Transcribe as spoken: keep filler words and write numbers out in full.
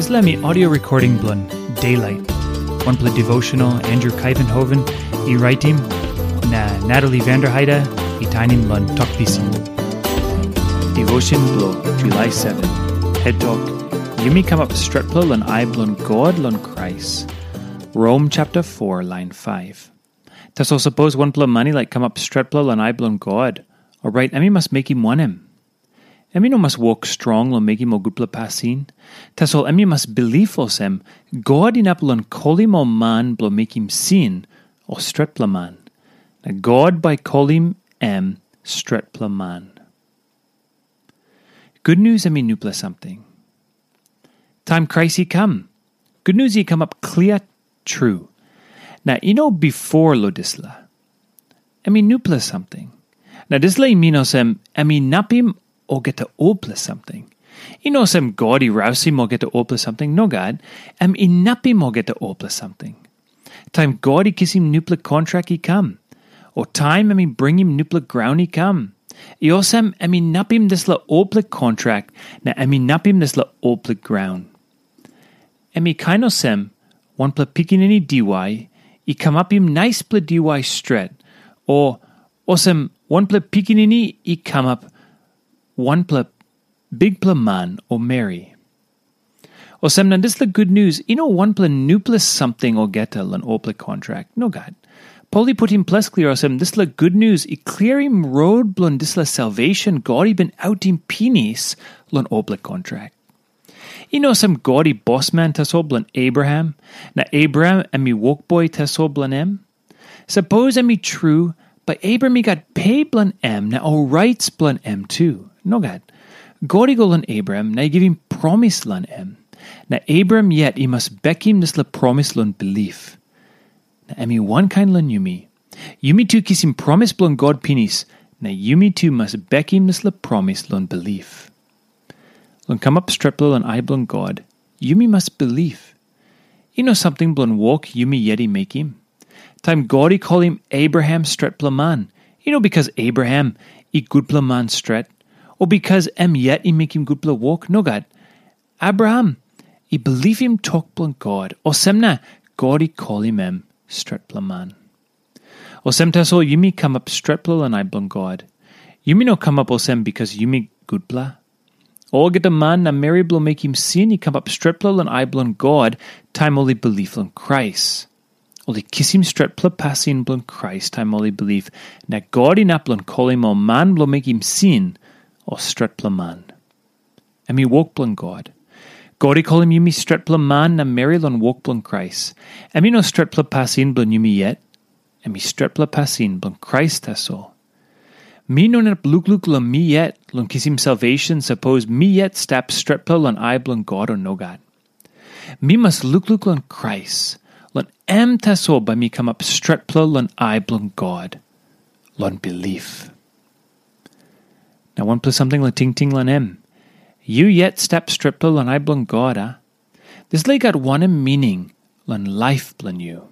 Dispela mi audio recording bilong Daylight, wanpela devotional Andrew Kaivenhoven i raitim, na Natalie Vanderheide i tainim long Tok Pisin. Devotion bilong July seven. Het tok, yumi kamap stretpela long ai bilong God long Krais. Rom chapter four, line five. Tasol sapos wanpela man i laik kamap stretpela long ai bilong God, orait em i mas mekim wanem? Em i no mas wok strong long mekim ol gutpela pasin. Tasol em i mas bilip olsem, God inap long kolim ol man bilong mekim sin, ol stretpela man. Na God bai kolim em stretpela man. Gutnius em i nupela samting. Taim Krais i kam, gutnius i kamap klia tru. Na i no bifor long dispela. Em i nupela samting. Na dispela i min olsem, em inapim olgeta olpela samting. I no olsem God i rausim olgeta olpela samting, nogat, em inapim olgeta olpela samting. Taim God i kisim nupela kontrak i kam, o taim em i bringim nupela graun i kam, i olsem em inapim dispela olpela kontrak na em inapim dispela olpela graun. Em i kain olsem, wanpela pikinini diwai i kamapim naispela diwai stret, o olsem wanpela pikinini i kamap wanpela bikpela man o meri. Olsem na dispela gutnius i no wanpela nupela samting olgeta long olpela kontrak. Nogat. Pol i putim ples klia olsem dispela gutnius i klirim rot bilong dispela salvation God i bin autim pinis long olpela kontrak. I no olsem God i bosman tasol bilong Abraham, na Abraham em i wokboi tasol bilong em. Sapos em i tru, bai Abraham i gat pe bilong em na ol rait bilong em tu. Nogat. God i go long Abraham na i givim promis long em. Na Abraham yet i mas bekim dispela promis long bilip. Na em i wankain long yumi. Yumi tu kisim promis bilong God pinis, na yumi tu mas bekim dispela promis long bilip. Long kamap stretpela long ai bilong God, yumi mas bilip. I no samting bilong wok yumi yet i mekim. Taim God i kolim Abraham stretpela man, i no bikas Abraham i gutpela man stret, o bikas em yet i mekim gutpela wok, nogat. Abraham i bilipim tok bilong God, olsem na God i kolim em stretpela man. Olsem tasol yumi kamap stretpela long ai bilong God. Yumi no kamap olsem bikas yumi gutpela. Olgeta man na meri bilong mekim sin i kamap stretpela long ai bilong God taim ol i bilip long Krais. Ol i kisim stretpela pasin bilong Krais taim ol i bilip, na God inap long kolim ol man bilong mekim sin ol stretpela man. Em i wok bilong God. God i kolim yumi stretpela man na meri long wok bilong Krais. Em i no stretpela pasin bilong yumi yet. Em i stretpela pasin bilong Krais tasol. Mi no inap lukluk long mi yet long kisim salvation sapos mi yet stap stretpela long ai bilong God o nogat. Mi mas lukluk long Krais, long em tasol bai mi kamap stretpela long ai bilong God, long bilip. Na wanpela samting long tingting long em. Yu yet stap stretpela long ai bilong God, a? Dispela i gat wanem mining long laip bilong yu?